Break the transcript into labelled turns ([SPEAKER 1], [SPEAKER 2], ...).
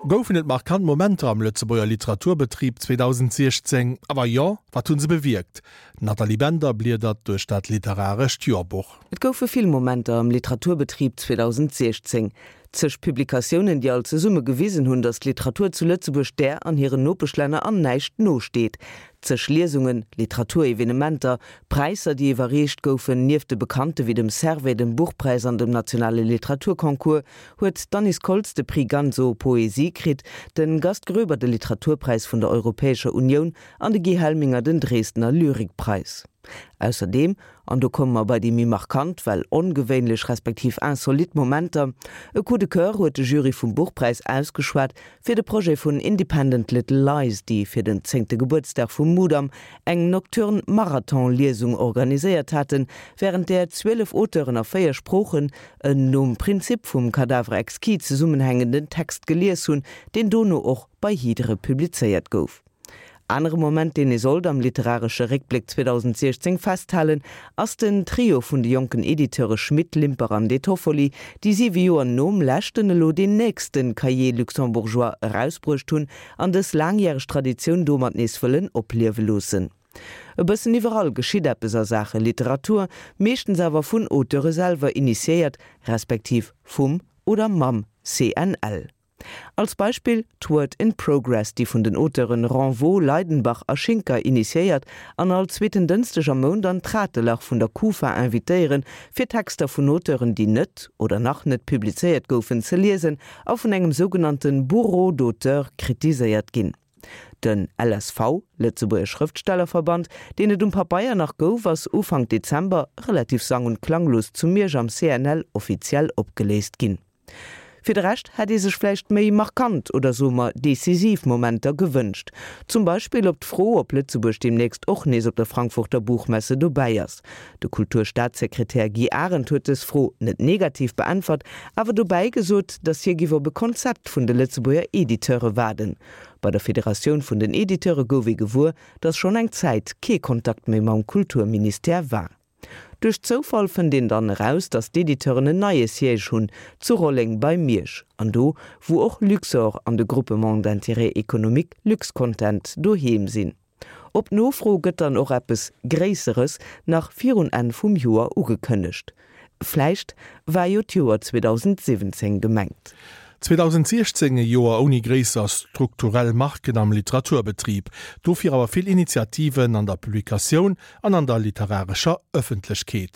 [SPEAKER 1] Goufen et markant Momenter am Lëtzebuerger Literaturbetrib 2016? A wa jo, wat hu se bewierkt? D'Nathalie Bender bliedert duerch dat literarescht Joerbuch.
[SPEAKER 2] Et goufe vill Momenter am Literaturbetrib 2016. Zeg Publikatiounen, déi all zesumme gewisen hunn, datt d'Literatur zu Lëtzebuerg där an hiren Nopeschlänner an näischt nosteet. Zeg Liesungen, Literaturevenementer, Präisser, déi iwwerreecht goufen, nieft de bekannte wéi dem Servais, dem Buchpräis an dem nationale Literaturconcours, huet d'Annice Koltz de Prix Ganso Poésie kritt, de Gast Groeber de Literaturpräis vun der Europäescher Unioun an de Guy Helminger den Dresdner Lyrikpreis. Ausserdeem, an do komme mer bei déi méi markant, well ongewéinlech respektiv insolite Momenter, e Coup de coeur huet de Jury vum Buchpräis ausgeschwat fir de Projet vun Independent Little Lies, déi fir den zéngte Gebuertsdag vum Mudam eng nocturne Marathon-Liesung organiséiert haten, wärend där 12 Auteuren a 4 Sproochen en nom Prinzip vum Cadavre exquis zesummenhängenden Text gelies hunn, deen dono och bei Hydre publizéiert gouf. Anere Moment, deen ee sollt am literaresche Réckbléck 2016 festhalen, ass den Trio vun de jonken Editeure Schmit, Limper an De Toffoli, déi siwe Joer nom leschten elo deen nächste Cahiers luxembourgeois erausbruecht hunn an dës laangjäreg Traditioun domat nees wëllen opliewe loossen. E bëssen iwwerall geschitt eppes a Saache Literatur, meeschtens awer vun Auteure selwer initiéiert, respektiv vum oder mam CNL. Als Beispill d'Word in Progress, déi vun den Auteuren Renvaux, Leidenbach a Schinker initiéiert an all zweeten Dënschdeg am Mount an d'Ratelach vun der Kufa invitéieren, fir Texter vun Auteuren, déi net oder nach net publizéiert goufen, ze liesen a vun engem sougenannte Bureau d'auteurs kritiséiert ginn. Den LSV, Lëtzebuerger Schrëftstellerverband, deen et um Pabeier nach gouf, ass Ufank Dezember relativ sang und klanglos zu Miersch am CNL offiziell opgeléist ginn. Fir de Rescht hätt ee sech vläicht méi markant oder soe mer decisiv Momenter gewënscht. Zum Beispill op d'Fro, ob Lëtzebuerg deemnächst och nees op der Frankfurter Buchmesse dobäi ass. De Kulturstaatssekretär Guy Arendt huet dës Fro net negativ beäntwert, awer dobäi gesot, datt hie giff op e Konzept vun de Lëtzebuerger Editeure waarden. Bei der Federatioun vun den Editeure gouf ee gewuer, datt schonn eng Zäit kee Kontakt méi mam Kulturministère war. Duerch Zoufall fënnt een dann eraus, datt d'Editeuren en neie Siège hunn, zu Rolleng bei Miersch, an do wou och Luxor an de Groupement d'intérêt économique Luxcontent doheem sinn. Op Nofro gëtt dann och eppes Gréisseres nach virun Enn vum Joer ugekënnegt. Vläicht war jo d'Joer 2017 gemengt.
[SPEAKER 1] 2016, e Joer ouni gréisser strukturell Marken am Literaturbetrib, dofir awer vill Initiativen an der Publikatioun an an der literarescher Ëffentlechkeet.